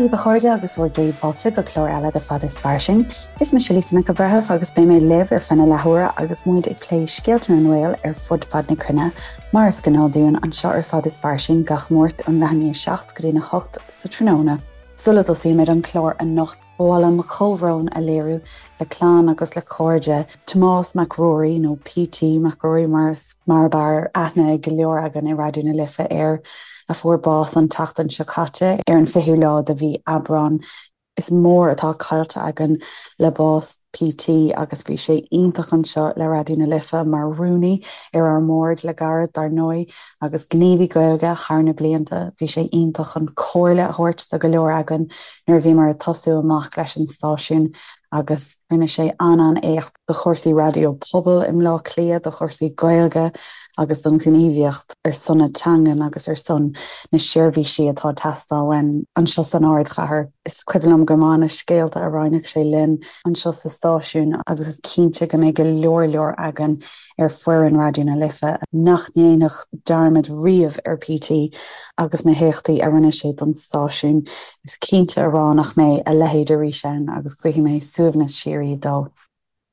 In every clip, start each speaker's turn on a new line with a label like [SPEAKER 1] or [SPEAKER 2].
[SPEAKER 1] Dia daoibh a chairde agus bhur gcéad fáilte go clár eile de Fada is Fairsing. Is mise Lisa Nic an Bhreithimh agus beidh mé libh ar feadh na leathuaire agus muid ag plé scéalta na nGael ar fud fad na cruinne, mar is gnáth dúinn anseo ar Fada is Fairsing gach Máirt ón leath i ndiaidh 7 go dtí a 8 sa tráthnóna. Sula dtosaímid an clár anocht, Ba mhaith liom mo chomhbhrón a léiriú le clann agus le cairde Tomás Mac Ruairí, nó PT Mac Ruairí mar is mar ab fhearr aithne ag go leor againn i Raidió na Life air, a fuair bás an tseachtain seo caite ar an 20ú lá de mhí Aibreán. Is mór atá caillte againn le bás PT agus bhí sé iontach anseo le Raidió na Life mar rúnaí ar ár mbord le gairid dar ndóigh agus gníomhaí Gaeilge thar na blianta. Bhí sé iontach chun comhairle a thabhairt do go leor againn nuair a bhíomar ag tosú amach leis an stáisiún agus rinne sé an-an-éacht do chúrsaí raidió pobail i mBleá Cliath, do chúrsaí Gaeilge agus don ghníomhaíocht ar son na teangan agus ar son na seirbhísí atá ag teastáil uainn anseo san ardchathair. Is cuimhin liom go maith na scéalta a roinneadh sé linn anseo sa stáisiún agus is cinnte go mbeidh go leor leor againn ar foireann Raidió na Life nach ndéanfadh dearmad riamh ar PT agus na héachtaí a rinne sé don stáisiún. Is cinnte a rá nach mbeidh a leithéid arís ann agus guífidh mé suaimhneas síoraí dó.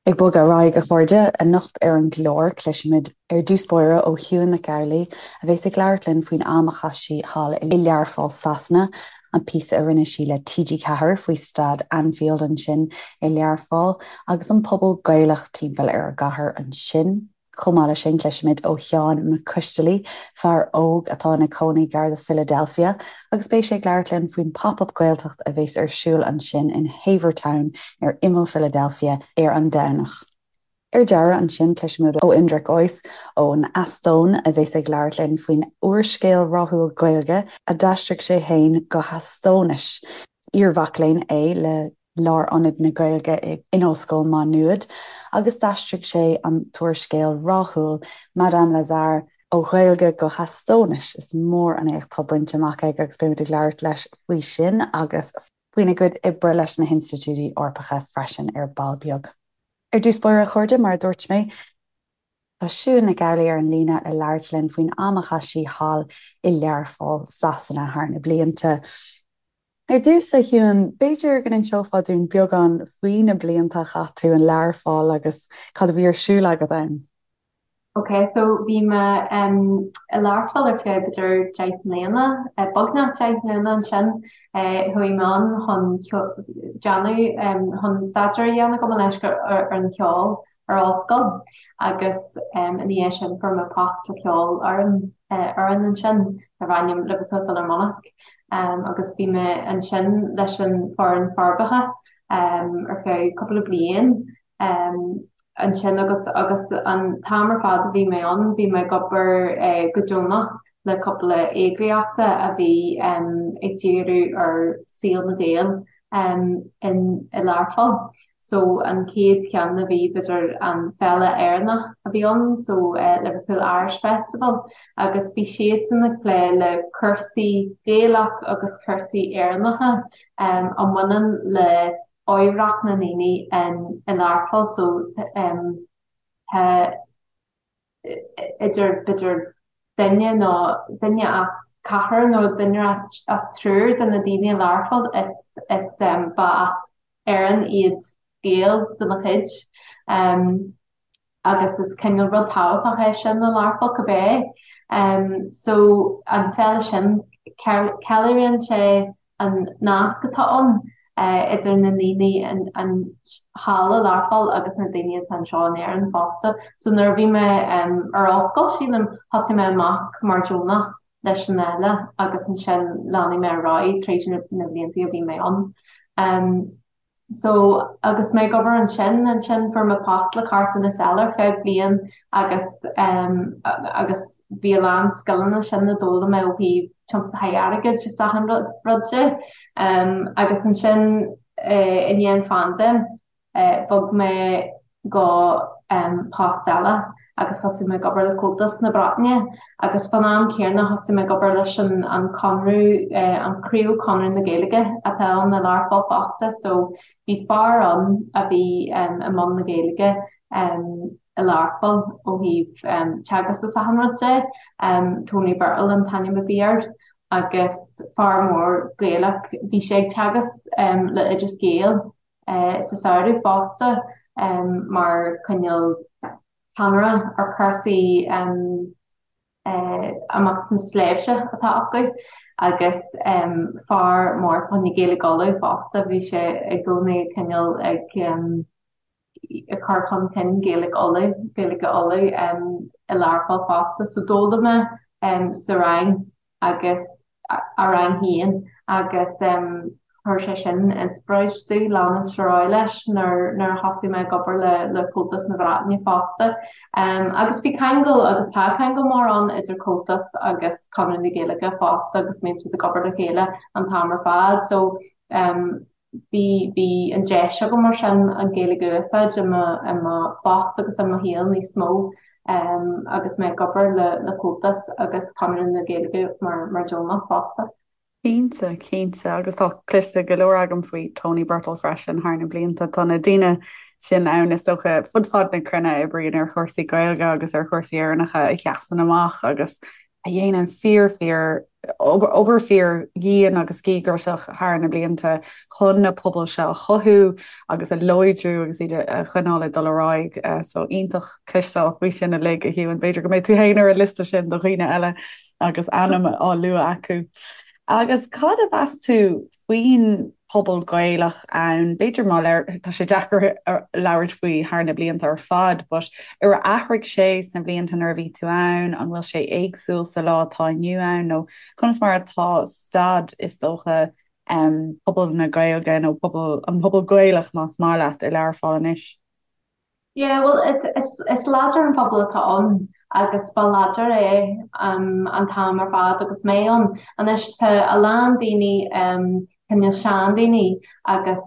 [SPEAKER 1] Ag bogadh ar aghaidh, a chairde, anocht ar an gclár, cloisfimid ar dtús báire ó Shiún Nic Amhlaoibh, a bheas ag labhairt linn faoin am a chaith sí thall i Learpholl, Sasana, an píosa a rinne sí le TG4 faoi staid Anfield ansin i Learpholl agus an pobal Gaelach timpeall ar an gcathair ansin. Chomh maith leis sin, cloisfimid ó Sheán Mac Coistealaí, fear óg atá ina cónaí gar do Philadelphia, agus beidh sé ag labhairt linn faoin Pop-Up Gaeltacht a bheas ar siúl ansin in Havertown ar imeall Philadelphia ar an Domhnach. Ar deireadh ansin, cloisfimid ó Indrek Ois ón Eastóin, a bheas ag labhairt linn faoin úrscéal rathúil Gaeilge a d'aistrigh sé féin go hEastóinis. Iar-mhac léinn é le Lárionad na Gaeilge in Ollscoil Má Nuad agus d'aistrigh sé an t-úrscéal rathúil Madame Lazare ó Ghaeilge go hEastóinis. Is mór an éacht atá bainte amach aige agus beimid ag labhairt leis faoi sin agus faoina gcuid oibre leis na hinstitiúidí Eorpacha freisin ar ball beag. Ar dtús báire, a chairde, mar a dúirt mé, tá Siún Nic Amhlaoibh ar an líne le labhairt linn faoin am a chaith sí thall i Learpholl, Sasana thar na blianta. Ar dtús, a Shiún, b'fhéidir go n-inseofá dúinn beagán faoi na blianta a chaith tú in Learpholl agus cad a bhí ar siúl agat ann.
[SPEAKER 2] Ok, so bhí mé i Learpholl ar feadh b'fhéidir 10 mbliana, beagnach 10 mbliana ansin. Chuaigh mé ann chun déanamh, chun staidéar a dhéanamh gabh mo leithscéal ar an cheol ar ollscoil agus ina dhiaidh sin fuair mé post le ceolfhoireann fhoireann ansin darb ainm Liverpool Philharmonic agus bhí mé ansin leis an foireann forbartha ar feadh cúpla bliain. ansin agus agus an t-am ar fad a bhí mé ann bhí mé ag obair go deonach le cúpla eagraíochta a bhí ag díriú ar saol na Gael in i Learpholl. So an chéad cheann a bhí b'fhéidir an Féile Éireannach a bhí ann so Liverpool Irish Festival agus bhí siadsan ag plé le cúrsaí Gaelach agus cúrsaí Éireannacha a mbaineann le oidhreacht na ndaoine i Learpholl so tá idir b'fhéidir duine nó duine as ceathrar nó duine as triúr de na daoine i Learpholl is is ba as Éirinn iad Gaeil de na chuid. agus is cineál rud tábhachtach é sin i Learpholl cibé. So an féile sin, ceiliúrann sé an nasc atá ann idir na daoine an thall i Learpholl agus na daoine atá anseo in Éirinn fosta. So nuair a bhí mé ar ollscoil, sílim, thosaigh mé amach mar deonach leis an fhéile agus ansin lean mé ar aghaidh tríd na blianta a bhí mé ann. So, agus mé ag obair ansin, ansin fuair mé post le carthanas eile ar feadh bliain agus em agus bhí a lán scileanna sin a d'fhoghlaim mé ó thaobh tiomsaithe airgid is achan rud rud de. Em agus ansin eh i ndiaidh an phaindéim eh bhog mé go post eile agus thosaigh mé ag obair le Comhaltas na Breataine agus fán am céanna thosaigh mé ag obair leis an an Conradh, an Craobh Conradh na Gaeilge atá ann i Learpholl fosta so bhí fear ann a bhí i mbun na Gaeilge i Learpholl ó thaobh teagasc is achan rud de, Tony Birtill an t-ainm a bhí air. Agus fear mór Gaelach, bhí sé ag teagasc le Oideas Gael sa samhradh fosta mar cineál ceannaire ar chúrsaí amach sna sléibhte atá acu agus fear mór fá choinne Gaeilge Uladh fosta, bhí sé i gcónaí cineál ag ag cur chun cinn Gaeilge Uladh, Gaeilge Uladh i Learpholl fosta. So d'fhoghlaim mé sa rang agus a rang féin agus chuir sé sin inspioráid domh leanúint ar aghaidh leis nuair nuair a thosaigh mé ag obair le le Comhaltas na Breataine fosta. Agus bhí ceangal agus tá ceangal mór ann idir Comhaltas agus Conradh na Gaeilge fosta agus bíonn siad ag obair le chéile an t-am ar fad. So Bhí, bhí an deis agam mar sin an Ghaeilge a úsáid i mo, i mo phost agus i mo shaol níos mó agus mé ag obair le, le Comhaltas agus Conradh na Gaeilge mar, mar deonach fosta.
[SPEAKER 1] Cinnte, cinnte agus tá cloiste go leor agam faoi Tony Birtill freisin thar na blianta. Tá na daoine sin ann is dócha fud fad na cruinne a oibríonn ar chúrsaí Gaeilge agus ar chúrsaí Éireannacha a sheasann amach agus a dhéanann fíor fíor obair fíor dhian agus dhíograiseach thar na blianta chun na pobail seo a chothú agus a láidriú agus iad a choinneáil ag dul ar aghaidh. So iontach cloisteáil faoi sin uilig, a Shiún. B'fhéidir go mbeidh tú féin ar an liosta sin do dhaoine eile agus ainm á lua acu. Agus cad a mheas tú faoin pobal Gaelach ann, b'fhéidir má tá sé deacair labhairt faoi thar na blianta ar fad, but ar athraigh sé sna blianta nuair a bhí tú ann, an bhfuil sé éagsúil sa lá atá inniu ann nó conas mar atá staid is dócha pobal na Gaeilge nó pobal an pobal Gaelach más maith leat i Learpholl anois?
[SPEAKER 2] Yeah, bhuel, is, is láidir an pobal atá ann agus ba láidir é an t-am ar fad agus mé ann. Anois tá a lán daoine, cineál seandaoine agus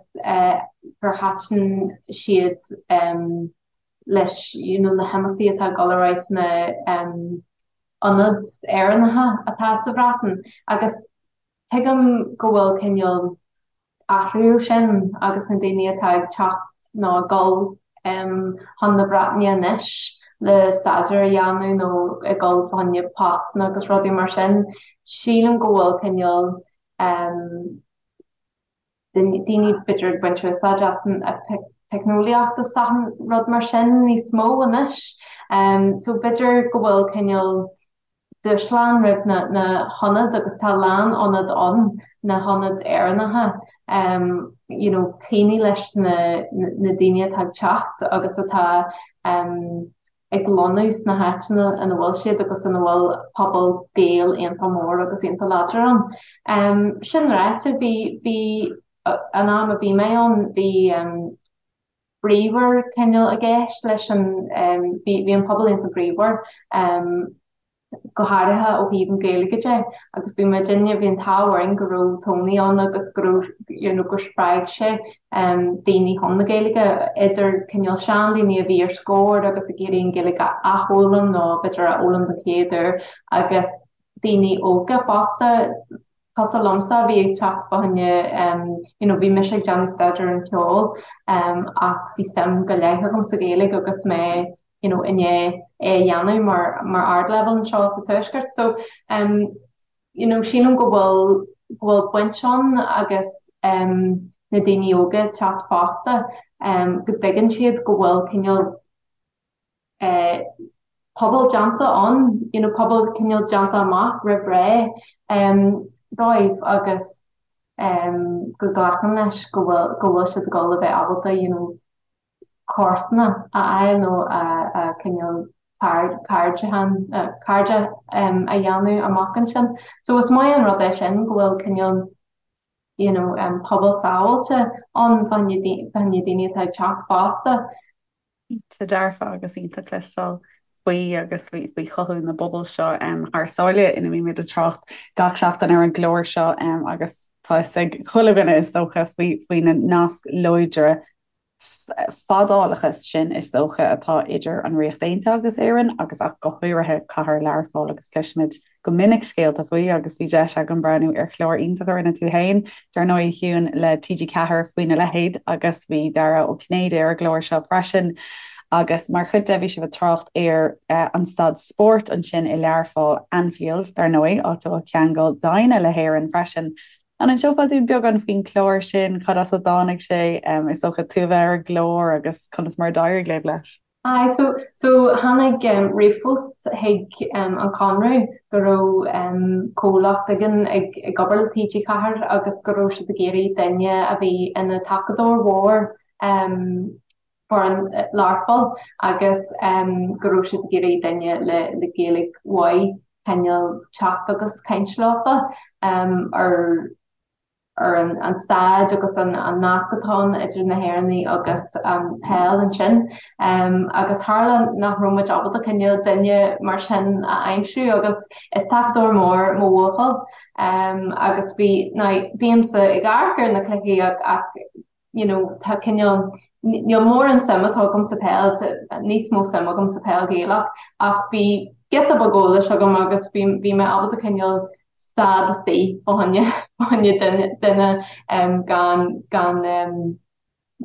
[SPEAKER 2] gur thaitin siad leis you know na himeachtaí atá ag dul ar aghaidh sna ionaid Éireannacha atá sa Bhreatain agus tuigim go bhfuil cineál athrú sin agus na daoine atá ag teacht nó ag dul chun na Breataine anois le staidéar a dhéanamh nó ag dul fá choinne postanna agus rudaí mar sin, sílim go bhfuil cineál daoine b'fhéidir ag baint úsáid as an teicneolaíocht is achan rud mar sin níos mó anois. So b'fhéidir go bhfuil cineál dúshlán roimh na hionaid agus tá a lán ionad ann, na hionaid Éireannacha, you know cuimhneamh leis na na daoine atá ag teacht agus atá ag lonnú sna háiteanna ina bhfuil siad agus ina bhfuil pobal Gael iontach mór agus iontach láidir ann. Sin ráite, bhí bhí an am a bhí mé ann, bhí bríomhar cineál i gceist leis an, bhí bhí an pobal iontach bríomhar, go háirithe ó thaobh an Ghaeilge de agus bhí muidinne, bhí an t-ádh orainn go raibh Tony ann agus go raibh, you know, gur spreag sé daoine chun na Gaeilge, idir cineál seandaoine a bhí ar scor agus ag iarraidh an Ghaeilge a athfhoghlaim nó b'fhéidir a fhoghlaim don chéad uair agus daoine óga fosta. cosúil liomsa a bhí ag teacht fá choinne you know bhí mise ag déanamh staidéar ar an cheol ach bhí suim go leith agam sa Ghaeilge agus mé you know i ndiaidh é a dhéanamh mar mar ardleibhéal anseo sa Tuaisceart so um you know sílim go bhfuil go bhfuil baint ann agus um na daoine óga ag teacht fosta um go dtuigeann siad go bhfuil cineál pobal déanta ann, you know pobal cineál déanta amach roimh ré dóibh agus go nglacann leis go bhfuil go bhfuil siad ag dul a bheith ábalta you know comharsana a fháil nó a cineál cairde a dhéanamh amach ansin. So is maith an rud é sin go bhfuil cineál you know pobal sábháilte ann fá choinne daoine atá ag teacht fosta.
[SPEAKER 1] Cinnte dearfa agus iontach cloisteáil faoi agus faoi chothú na bpobal seo thar sáile ina mbímid ag trácht gach seachtain ar an gclár seo agus tá fhios ag chuile dhuine is dócha faoi faoi na naisc láidre fadálacha sin is dócha atá idir an Ríocht Aontaithe agus Éirinn agus ach go háirithe cathair Learpholl agus cloisimid go minic scéalta faoi agus bhí deis agam breathnú ar chlár iontach a rinne tú féin, dar ndóigh, a Shiún, le TG4 faoina leithéid agus bhí Dara Ó Cinnéide ar an gclár seo freisin. Agus mar chuid de bhí sibh ag trácht ar an staid spóirt ansin i Learpholl, Anfield, dar ndóigh, áit a bhfuil ceangal doimhne le hÉirinn freisin. An inseofá dúinn beagán faoin chlár sin, cad as a dtáinig sé, is dócha tú a bheith ar an gclár agus conas mar a d'éirigh libh leis?
[SPEAKER 2] Aye, so, so tháinig ríomhphost chuig an Conradh go raibh comhlacht éigin ag ag obair le TG4 agus go raibh siad ag iarraidh duine a bhí ina tacadóir mhór foireann Learpholl agus go raibh siad ag iarraidh duine le le Gaeilge mhaith cineál teacht agus caint leofa ar ar an staid agus an nasc atá ann idir na hÉireannaigh agus an peil ansin. Agus tharla nach raibh muid ábalta cineál duine mar sin a aimsiú agus is tacadóir mór mo bhuachaill agus bhí, now bímse ag amharc ar na cluichí ach you know tá cineál, níl mórán suim atá agam sa peil, níos mó suim agam sa peil Ghaelach ach bhí giota beag eolais agam agus bhí bhí mé ábalta cineál stad istigh fá choinne fá choinne duine duine um, gan gan um,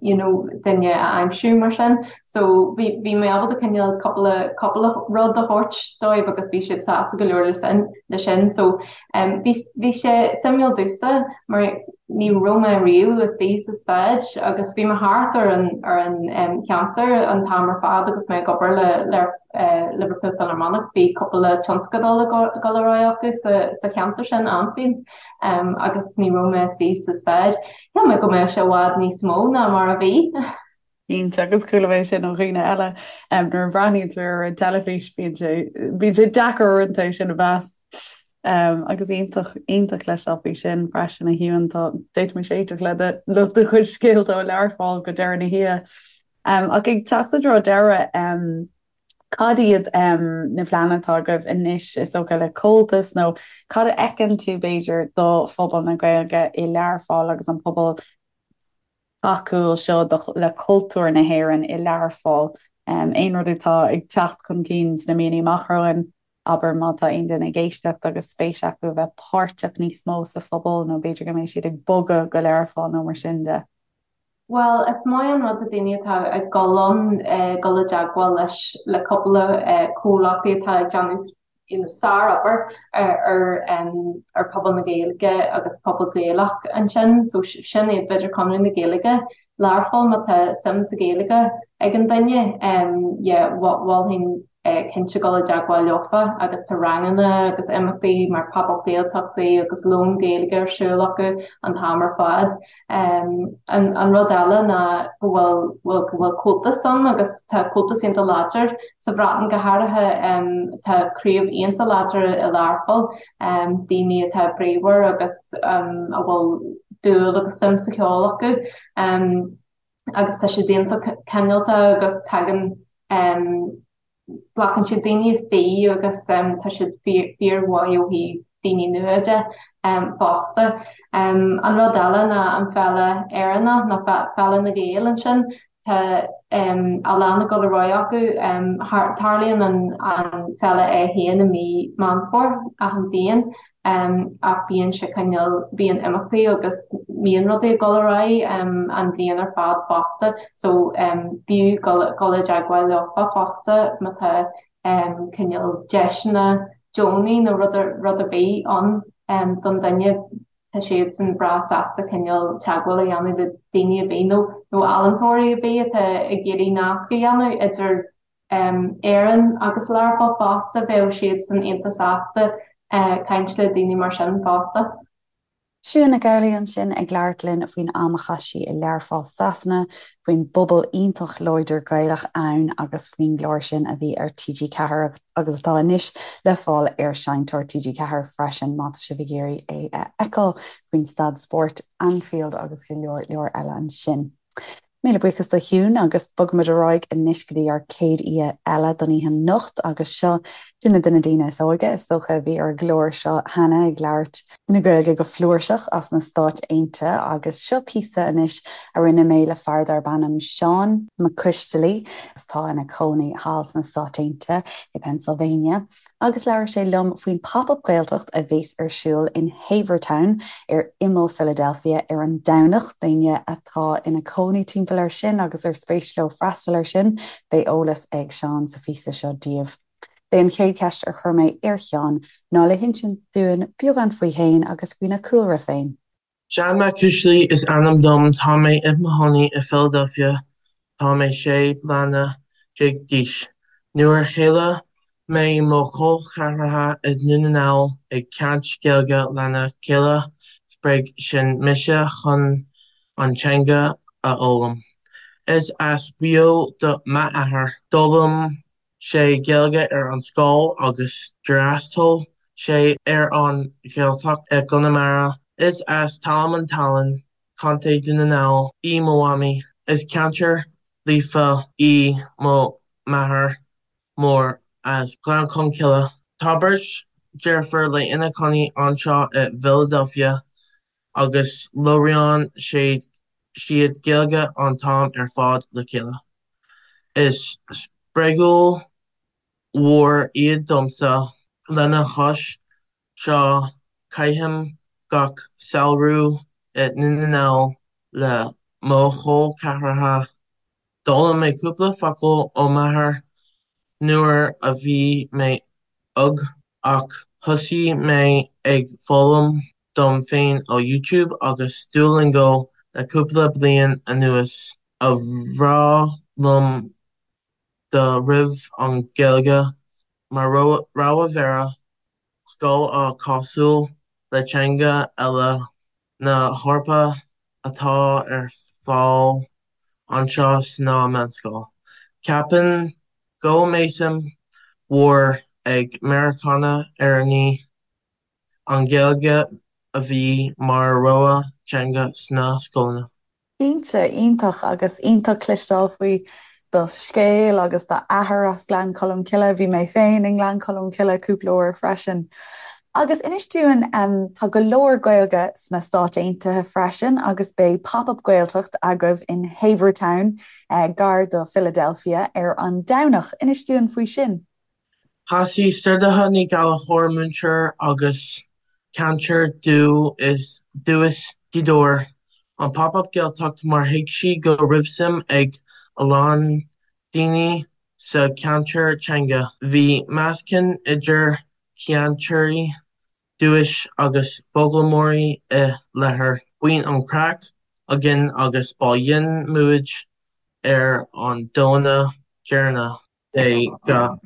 [SPEAKER 2] you know duine a aimsiú mar sin. So bhí bhí mé ábalta cineál cúpla cúpla rud a thabhairt dóibh agus bhí siad sásta go leor le sin le sin. So um, bhí bhí sé suimiúil domhsa mar Ní raibh mé riamh istigh sa staid agus bhí mé thart ar an ar an cheantar an t-am ar fad agus mé ag obair le Liverpool Philharmonic. Bhí cúpla tionscadal ag dul ar aghaidh acu sa sa cheantar sin, Anfield, agus ní raibh mé istigh sa staid. Shíl mé go mbeadh sé i bhfad níos mó ná mar a bhí.
[SPEAKER 1] Cinnte, agus chuala mé sin ó dhaoine eile, nuair a bhreathnaíonn tú ar an teilifís bíonn sé, bíonn sé deacair uaireanta é sin a mheas. Agus iontach, iontach cloisteáil faoi sin freisin a Shiún, tá, d'fhéadfaimis éisteacht le do, le do chuid scéalta ó Learpholl go deireadh na hoíche. Ach ag teacht i dtreo deireadh, cad iad na pleananna atá agaibh anois, is dócha, le Comhaltas nó cad a fheiceann tú, b'fhéidir, do phobal na Gaeilge i Learpholl agus an pobal tacúil seo le cultúr na hÉireann i Learpholl. Aon rud atá ag teacht chun cinn sna míonna amach romhainn, abair má tá aon duine ag éisteacht agus spéis acu a bheith páirteach níos mó sa phobal nó b'fhéidir go mbeidh siad ag bogadh go Learpholl nó mar sin de.
[SPEAKER 2] Bhuel, is maith an rud do daoine atá ag dul ann dul i dteagmháil leis le cúpla comhlachtaí atá ag déanamh you know sár-obair ar ar pobal na Gaeilge agus pobal Gaelach ansin so sin iad b'fhéidir Conradh na Gaeilge Learpholl má tá suim sa Ghaeilge ag an duine yeah mholfainn cinnte dul i dteagmháil leofa agus tá ranganna agus imeachtaí mar Pop-up Gaeltachtaí agus lón Gaeilge ar siúl acu an t-am ar fad. An rud eile ná go bhfuil bhfuil go bhfuil Comhaltas ann agus tá Comhaltas iontach láidir sa Bhreatain go háirithe. Tá craobh iontach láidir i Learpholl, daoine atá bríomhar agus a bhfuil dúil agus suim sa cheol acu agus tá siad iontach cineálta agus tagann Glacann siad daoine istigh agus tá siad fíormhaith ó thaobh daoine nua de fosta. An rud eile ná an Féile Éireannach nó Féile na Gael ansin, tá a lán ag dul ar aghaidh acu. Tarlaíonn an féile é féin i mí Meán Fómhair achan bhliain ach bíonn sé cineál, bíonn imeachtaí agus bíonn rudaí ag dul ar aghaidh an bhliain ar fad fosta so b'fhiú dul i dteagmháil leofa fosta má tá cineál deiseanna deonaí nó rud rud ar bith ann don duine tá siadsan breá sásta cineál teagmháil a dhéanamh le daoine ar bith nó nó ealaíontóirí ar bith atá ag iarraidh nasc a dhéanamh idir Éirinn agus Learpholl fosta, bheadh siadsan iontach sásta caint le daoine mar sin fosta.
[SPEAKER 1] Siún Nic Amhlaoibh ansin ag labhairt linn faoin am a chaith sí i Learpholl Sasana, faoin bpobal iontach láidir Gaelach ann agus faoin gclár sin a bhí ar TG4 agus atá anois le fáil ar Seinnteoir TG4 freisin má tá sibh ag iarraidh é a fheiceáil, faoin staid spóirt Anfield agus go leor leor eile ansin. Míle buíochas do Shiún agus bogfaimid ar aghaidh anois go dtí ár céad aoi eile don oíche anocht agus seo duine de na daoine is óige is dócha a bhí ar an gclár seo cheana ag labhairt na Gaeilge go flúirseach as na Stáit Aontaithe agus seo píosa anois a rinne mé le fear darb ainm Seán Mac Coistealaí atá ina chónaí thall sna Stáit Aontaithe i Pennsylvania. agus labhair sé liom faoin Pop Up Gaeltacht a bheas ar siúl in Havertown ar imeall Philadelphia ar an Domhnach. Daoine atá ina cónaí timpeall air sin agus ar spéis leo freastal air sin, beidh eolas ag Seán sa phíosa seo daoibh. B'é an chéad cheist ar chuir mé ar Sheán ná le hinsint dúinn beagán faoi fhéin agus faoina chúlra féin.
[SPEAKER 3] Seán Mac Coisdealbha is ainm dom, tá mé i mo chónaí i Philadelphia, tá mé 16 bliana d'aois. Nuair a chuala mé mo chol ceathracha i nDún na nGall ag caint Gaeilge lena chéile spreag sin mise chun an teanga a fhoghlaim. Is as Maigh Eo do m'athair. D'fhoghlaim sé Gaeilge ar an scoil agus d'fhreastail sé ar an Ghaeltacht i gConamara. Is as Talamh an tSalainn, Contae Dún na nGall, í mo mhamaí. Is cainteoir líofa í mo mháthair mór as Gleann Cholm Cille. Tá beirt deirfiúr léi ina cónaí anseo i bhFiladelfia agus labhraíonn siad Gaeilge an t-am ar fad le chéile. Is spreagadh mhór iad domsa. Lena chois seo caithim gach samhradh i nDún na nGall le mo chol ceathracha. D'fhoghlaim mé cúpla focal ó m'athair nuair a bhí mé óg ach thosaigh mé ag foghlaim dom féin ó YouTube agus Duolingo le cúpla bliain anuas. Ba bhreá liom dá raibh an Ghaeilge mar rogha dara scoil á cosúil le teanga eile na hEorpa atá ar fáil anseo sna meánscoil. Ceapaim go mbeidh suim mhór ag Meiriceánaigh Éireannaigh an Ghaeilge a bheith mar rogha teanga sna scoileanna.
[SPEAKER 1] Cinnte, iontach agus iontach cloisteáil faoi do scéal agus d'athair as Gleann Cholm Cille. Bhí mé féin i nGleann Cholm Cille cúpla uair freisin. Agus inis dúinn, tá go leor Gaeilge sna Stáit Aontaithe freisin agus beidh Pop Up Gaeltacht agaibh in Havertown, gar do Philadelphia, ar an Domhnach. Inis dúinn faoi sin.
[SPEAKER 3] Thosaigh Stiúrthóir Ní Ghallchóir, múinteoir agus cainteoir dúchais Ghaoth Dobhair, an Pop Up Gaeltacht mar thuig sí go raibh suim ag a lán daoine sa cheantar teanga. Bhí meascán idir chainteoirí dúchais agus foghlaimeoirí i láthair. Bíonn an craic againn agus bailíonn muid ar an Domhnach deireanach. de gach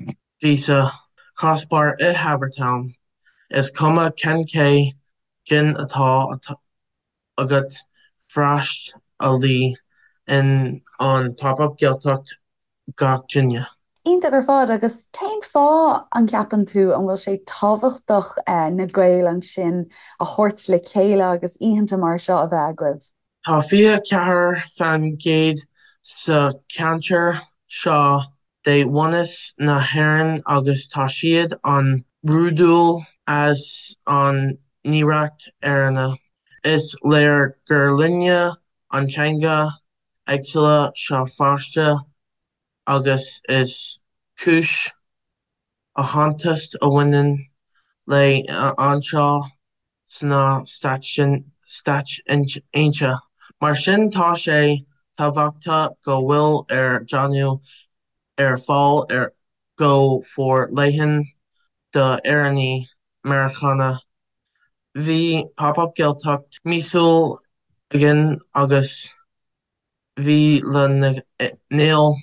[SPEAKER 3] mhí sa Crossbar i Havertown. Is cuma cén caighdeán atá agat freastalaíonn an Pop Up Gaeltacht gach duine.
[SPEAKER 1] Iontach ar fad agus cén fáth an gceapann tú an bhfuil sé tábhachtach na Gaeil ansin a thabhairt le chéile agus oícheanta mar seo a bheith agaibh?
[SPEAKER 3] Tá 24% sa cheantar seo de bhunús na hÉireann agus tá siad an-bhródúil as an n-oidhreacht Éireannach. Is léir gur linne an teanga éagsúla seo fosta agus is cúis aitheantais a bhaineann léi anseo sna Stáit Aontaithe. Mar sin tá sé tábhachtach go bhfuil ar déanamh ar fáil ar go forleathan d'Éireannaigh Meiriceánacha. Bhí Pop Up Gaeltacht míosúil againn agus bhí Lá na nGael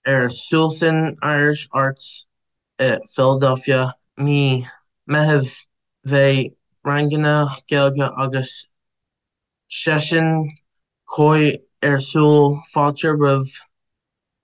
[SPEAKER 3] ar siúl san Irish Arts i Philadelphia mí Meitheamh. Bheadh ranganna Gaeilge agus seisiún comhrá ar siúl fáilte roimh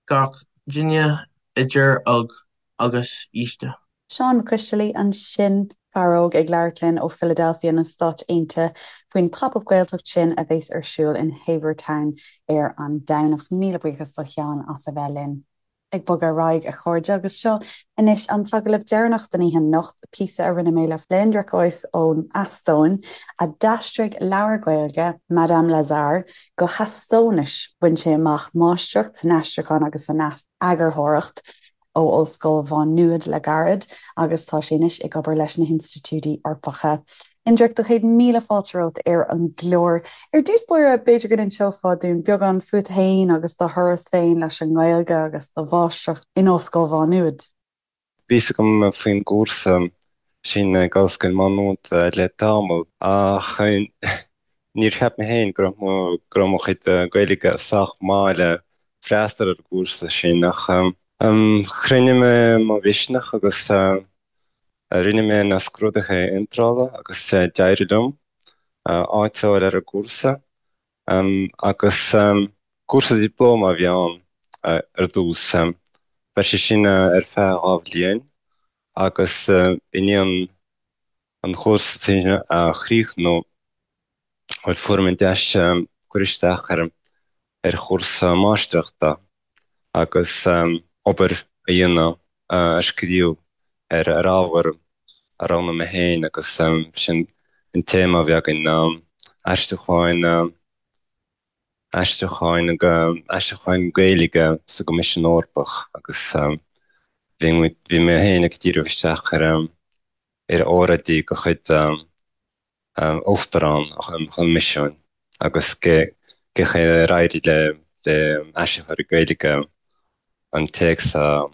[SPEAKER 3] gach duine idir óg agus aosta.
[SPEAKER 1] Seán Mac Coisdealbha ansin, fear óg ag labhairt linn ó Philadelphia na Stáit Aontaithe faoin Pop Up Gaeltacht sin a bheas ar siúl in Havertown ar an Domhnach. Míle buíochas do Sheán as a bheith linn. Ag bogadh ar aghaidh, a chairde, agus seo anois an t-agallamh deireanach don oíche anocht, píosa a rinne mé le Indrek Ois ón Eastóin, a d'aistrigh leabhar Gaeilge, Madame Lazare, go hEastóinis. Bhain sé amach máistreacht san aistriúchán agus san eagarthóireacht. ó Ollscoil Mhá Nuad le gairid agus tá sé anois ag obair leis na hInstitiúidí Eorpacha. Indrek, do chéad míle fáilte romhat ar an gclár. Ar dtús báire, b'fhéidir go n-inseofá dúinn beagán fút féin agus do thuras féin leis an nGaeilge agus do mháistreacht in Ollscoil Mhá Nuad.
[SPEAKER 4] Bhí fhios agam faoin gcúrsa sin ag Ollscoil Mhá Nuad le tamall ach níor cheap mé féin go raibh mo go raibh mo chuid Gaeilge sách maith le freastal ar an gcúrsa sin ach chruinnigh mé mo mhisneach agus rinne mé na scrúduithe iontrála agus d'éirigh liom áit a fháil ar an gcúrsa. Agus cúrsa dioplóma a bhí ann ar dtús. Bheadh sé sin ar feadh 2 bhliain agus i ndiaidh an chúrsa sin a chríochnú, bhuel, fuair mé an deis cur isteach ar ar chúrsa máistreachta agus obair a dhéanamh, a scríobh ar ar ábhar a roghnaigh mé féin agus sin an téama a bhí againn ná aistriúcháin, aistriúcháin, aistriúcháin Gaeilge sa gCoimisiún Eorpach agus bhí muid, bhí mé féin ag díriú isteach ar ar óráidí de chuid Uachtarán an Choimisiúin agus cén chaoi ar éirigh le aistritheoirí Gaeilge an téacs a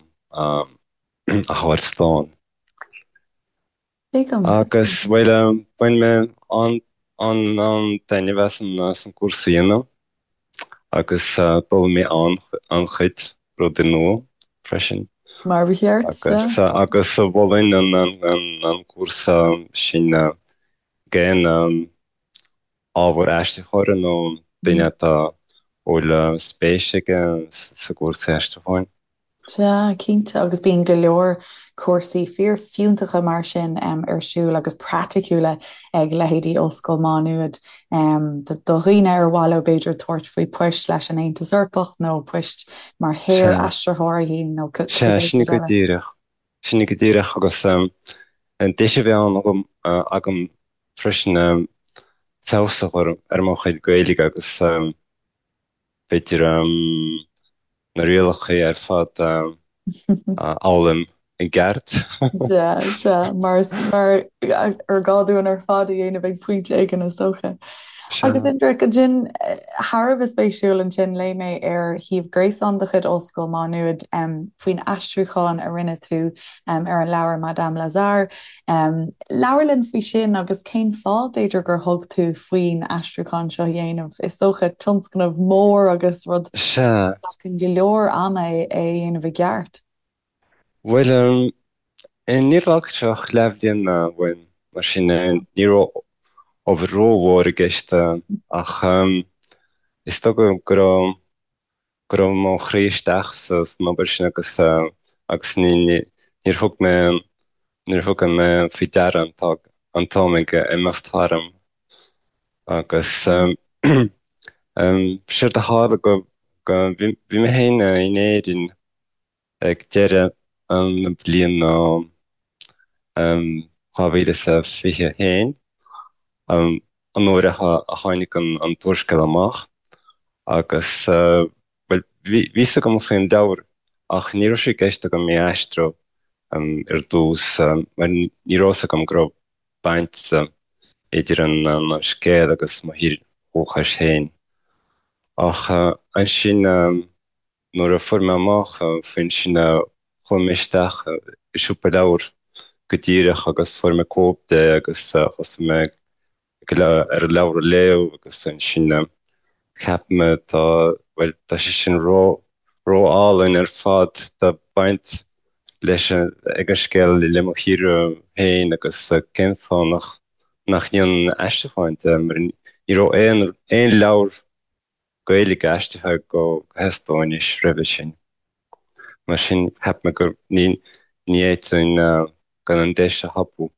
[SPEAKER 4] thabhairt slán. Agus, bhuel, bhain mé an-taitneamh as an gcúrsa a dhéanamh agus d'fhoghlaim mé an-chuid rudaí nua freisin.
[SPEAKER 1] Mar ba cheart,
[SPEAKER 4] sea. Agus mholfainn an cúrsa sin d'aon ábhar aistritheora nó duine atá a bhfuil spéis aige sa gcúrsa aistriúcháin.
[SPEAKER 1] Sea, cinnte, agus bíonn go leor cúrsaí fíorfhiúntacha mar sin ar siúl agus praiticiúla ag leithéidí Ollscoil Mhá Nuad do dhaoine ar mhaith leo b'fhéidir tabhairt faoi poist leis an Aontas Eorpach nó poist mar shaor-aistritheoirí nó
[SPEAKER 4] cibé Sea, sin go díreach. Sin go díreach agus an deis a bhí ann agam freisin feabhas a chur ar mo chuid Gaeilge agus b'fhéidir na rialacha ar fad a fhoghlaim i gceart.
[SPEAKER 1] Sea, sea, mar mar ar gá dúinn ar fad a dhéanamh ag pointe éigin is dócha. Agus Indrek, ansin, thar a bheith spéisiúil ansin, léigh mé ar shuíomh gréasáin de chuid Ollscoil Mhá Nuad faoin aistriúchán a rinne tú ar an leabhar Madame Lazare. Labhair linn faoi sin agus cén fáth, b'fhéidir, gur thug tú faoin aistriúchán seo a dhéanamh. Is dócha tionscnamh mór agus rud a
[SPEAKER 4] Sea.
[SPEAKER 1] ghlacann go leor ama é a dhéanamh i gceart.
[SPEAKER 4] Bhuel, níor ghlac sé ach leathbhliain uaim, mar sin ní raibh obair rómhór i gceist ach is dócha go raibh go raibh mo chroí isteach san obair sin agus agus ní níor thug mé níor thug mé faoi deara an an t-am ag imeacht tharam agus séard a tharla go go bhí bhí mé féin in Éirinn ag deireadh na bliana 2021, an uair a tháinig an t-úrscéal amach agus, bhuel, bhí fhios agam faoin leabhar ach ní raibh sé i gceist agam é a aistriú ar dtús mar ní raibh fhios agam go raibh baint idir an scéal agus mo thír dhúchais féin. Ach ansin, Nuair a fuair mé amach faoin sin chuaigh mé isteach i siopa leabhar go díreach agus fuair mé cóip de agus thosaigh mé ar an leabhar a léamh agus ansin cheap mé tá, bhuel, tá sé sin ró, ró-álainn ar fad, tá baint leis ag an scéal le mo thír féin agus cén fáth nach, nach ndéanfainn aistriúchán de mar ní raibh aon, aon leabhar Gaeilge aistrithe go hEastóinis roimhe sin. Mar sin, cheap mé gur ní fhéadfainn gan an deis a thapú.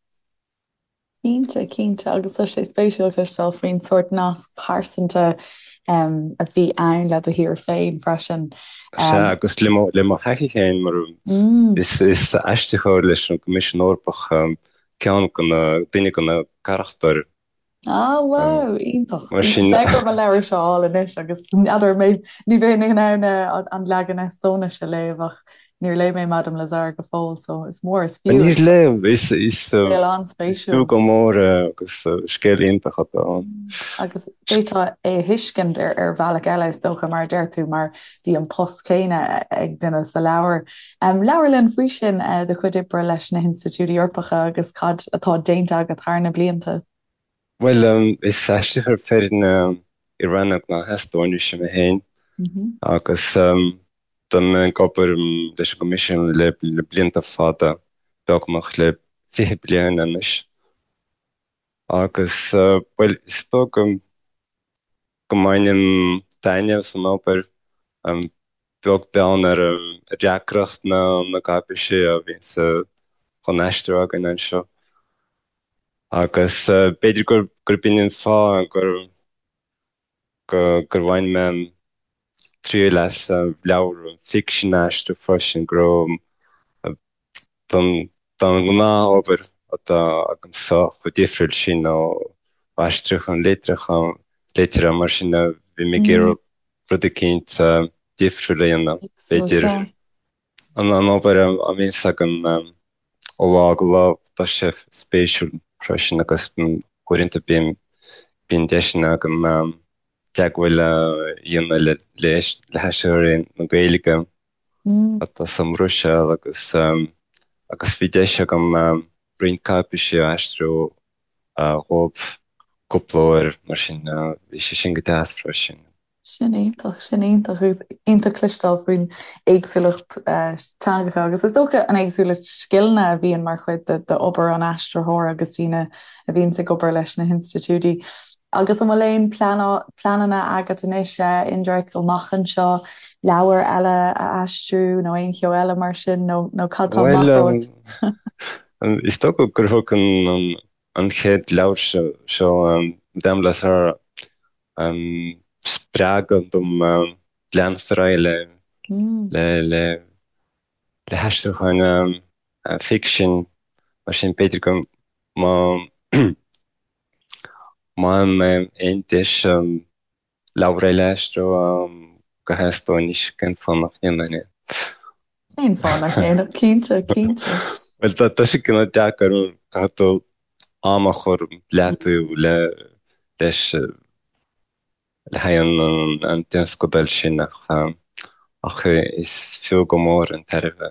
[SPEAKER 1] Cinnte, cinnte, agus tá sé spéisiúil cloisteáil faoin sórt nasc pearsanta a bhí ann le do thír féin freisin.
[SPEAKER 4] Sea, agus le mo le mo thaithí féin mar is is aistritheoir leis an gCoimisiún Eorpach ceann de na, duine de na carachtair.
[SPEAKER 1] Ah wow, iontach. Mar sin. Beidh orm an leabhar seo a fháil anois agus n'fheadar mé ní bheinn in ann an leagan Eastóinise a léamh ach níor léigh mé Madame Lazare go fóill so is mór is fiú.
[SPEAKER 4] Níor léigh, is scéal an-spéisiúil. Fiú go mór é agus scéal iontach atá ann.
[SPEAKER 1] Agus d'fhéadfá é a thuiscint ar ar bhealach eile is dócha mar a deir tú mar bhí an post céanna ag duine sa leabhar. Labhair linn faoi sin, do chuid oibre leis na hinstitiúidí Eorpacha agus cad atá déanta agat thar na blianta.
[SPEAKER 4] Bhuel, is aistritheoir foirne i rannóg na hEastóinise mé féin agus tá mé ag obair leis an gCoimisiún le blianta fada, beagnach le 20 bliain anois. Agus, bhuel, is dóigh go mbainim taitneamh as an obair, beag beann ar dheacracht na gcáipéisí a bhíonns chun aistriú againn anseo. Agus b'fhéidir gurb in an fáth gur gur bhain mé triail as leabhar ficsin a aistriú freisin, go raibh don ghnáth-obair atá agamsa chomh difriúil sin ó aistriúchán litreacha, liteartha, mar sin bhí mé ag iarraidh rud eicínt difriúil a dhéanamh, b'fhéidir. An obair a bhíonns agam ó lá go lá, tá sé spéisiúil freisin agus uaireanta bíonn deiseanna agam teagmháil a dhéanamh le haistritheoirí na Gaeilge atá sa mBruiséil agus agus bhí deis agam roinnt cáipéisí a aistriú dhóibh cúpla uair mar sin bhí sé sin go deas freisin.
[SPEAKER 1] Sin iontach, sin iontach agus iontach cloisteáil faoin éagsúlacht teangacha agus is dócha an éagsúlacht scileanna a bhíonn mar chuid d'obair an aistritheora agus daoine a bhíonns ag obair leis na hinstitiúidí. Agus an bhfuil aon pleananna agat anois, Indrek, amach anseo, leabhar eile a aistriú nó aon cheo eile mar sin nó nó cad tá amach
[SPEAKER 4] romhat? Bhuel, is dócha gur thug an chéad leabhar seo, Madame Lazare, spreagadh dom leanacht ar aghaidh le le le haistriúcháin ficsin, mar sin b'fhéidir go má má fhaigheann mé aon deis leabhar eile a aistriú go hEastóinis, cén fáth nach ndéanfainn é?
[SPEAKER 1] Cén fáth nach ndéanfadh? Cinnte, cinnte.
[SPEAKER 4] Bhuel, tá sé cineál deacair, caithfidh tú am a chur leataobh le leis le haghaidh an tionscadail sin ach ach is fiú go mór an tairbhe,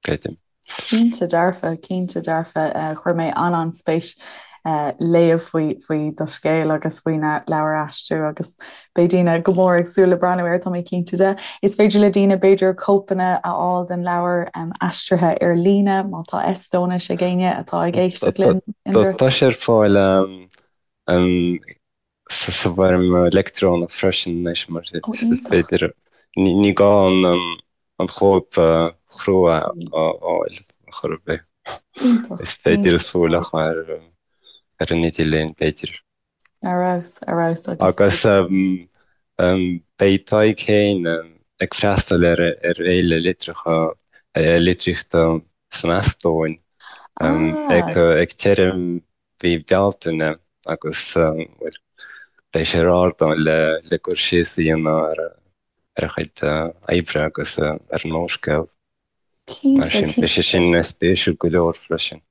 [SPEAKER 4] creidim.
[SPEAKER 1] Cinnte dearfa, cinnte dearfa. Chuir mé an-an-spéis léamh faoi faoi do scéal agus faoin leabhar a aistriú agus beidh daoine go mór ag súil le breathnú air, tá mé cinnte de. Is féidir le daoine b'fhéidir cóipeanna a fháil den leabhar aistrithe ar líne má tá Eastóinis ag éinne atá ag éisteacht linn.
[SPEAKER 4] Tá sé ar fáil sa bhfoirm leictreonach freisin anois mar is féidir, ní gá an chóip chrua a fháil ar chor ar bith. Is féidir súil a chur ar an idirlíon b'fhéidir.
[SPEAKER 1] Ar fheabhas, ar fheabhas
[SPEAKER 4] agus. Agus beidh Tadhg féin ag freastal ar Fhéile Litreacha, Litríochta san Eastóin ag deireadh mhí Bealtaine agus, bhuel, beidh sé ar ardán le cur síos a dhéanamh ar a chuid oibre agus ar an úrscéal. Mar sin, beidh sé sin spéisiúil go leor freisin.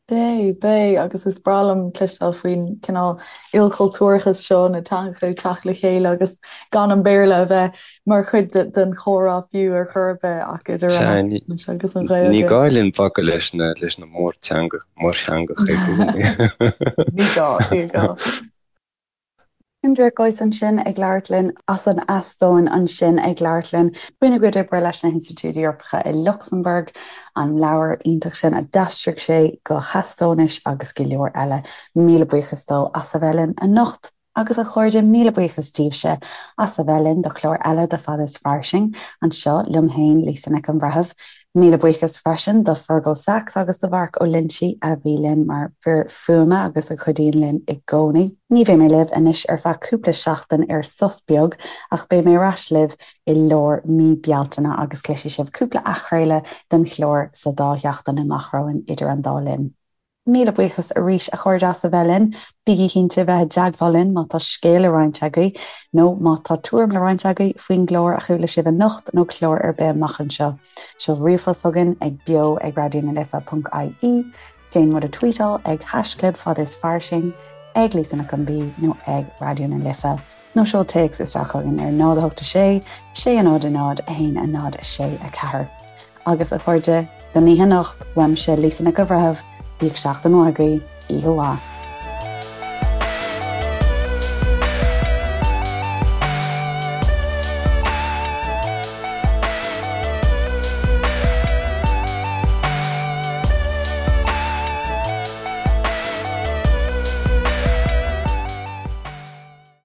[SPEAKER 1] Beidh, beidh, agus is breá liom cloisteáil faoin cineál ilchultúrachas seo, na teangacha ag teacht le chéile agus gan an Béarla a bheith mar chuid den chomhrá fiú ar chor ar bith ach idir an Eastóinis agus an
[SPEAKER 4] Ghaeilge. Ní gá linn bacadh leis na leis na mórteanga, mórtheangacha i
[SPEAKER 1] gcónaí. Ní gá, ní gá. Indrek Ois ansin ag labhairt linn as an Eastóin ansin ag labhairt linn faoina gcuid oibre leis na hinstitiúidí Eorpacha i Lucsamburg, an leabhar iontach sin a d'aistrigh sé go hEastóinis agus go leor eile. Míle buíochas dó as a bheith linn anocht. Agus a chairde, míle buíochas daoibhse as a bheith linn do chlár eile de Fada is Fairsing, anseo liom féin, Lisa Nic an Bhreithimh. Míle buíochas freisin do Fergal Sachs agus do Mharc Ó Loinsigh a bhí linn mar fhir fuaime agus a chuidíonn linn i gcónaí. Ní bheidh mé libh anois ar feadh cúpla seachtain ar sos beag ach beidh mé ar ais libh i lár mí Bealtaine agus cloisfidh sibh cúpla athchraoladh den chlár sa dá sheachtain amach romhainn idir an dá linn. Míle buíochas arís a chairde as a bheith linn. Bígí cinnte bheith i dteagmháil linn má tá scéal le roinnt agaibh nó má tá tuairim le roinnt agaibh faoin gclár a chuala sibh anocht nó clár ar bith amach anseo. Seol ríomhphost chugainn ag beo ag raidió na life ponc ie, déan muid a tweetáil ag haischlib fad is fairsing, ag Lisa Nic an B nó ag Raidió na Life nó seol téacs isteach chugainn ar 0 8 6 6 0 0 1 0 6 4. Agus, a chairde, don oíche anocht, uaimse, Lisa Nic an Bhreithimh, bíodh seachtain mhaith agaibh, oíche mhaith.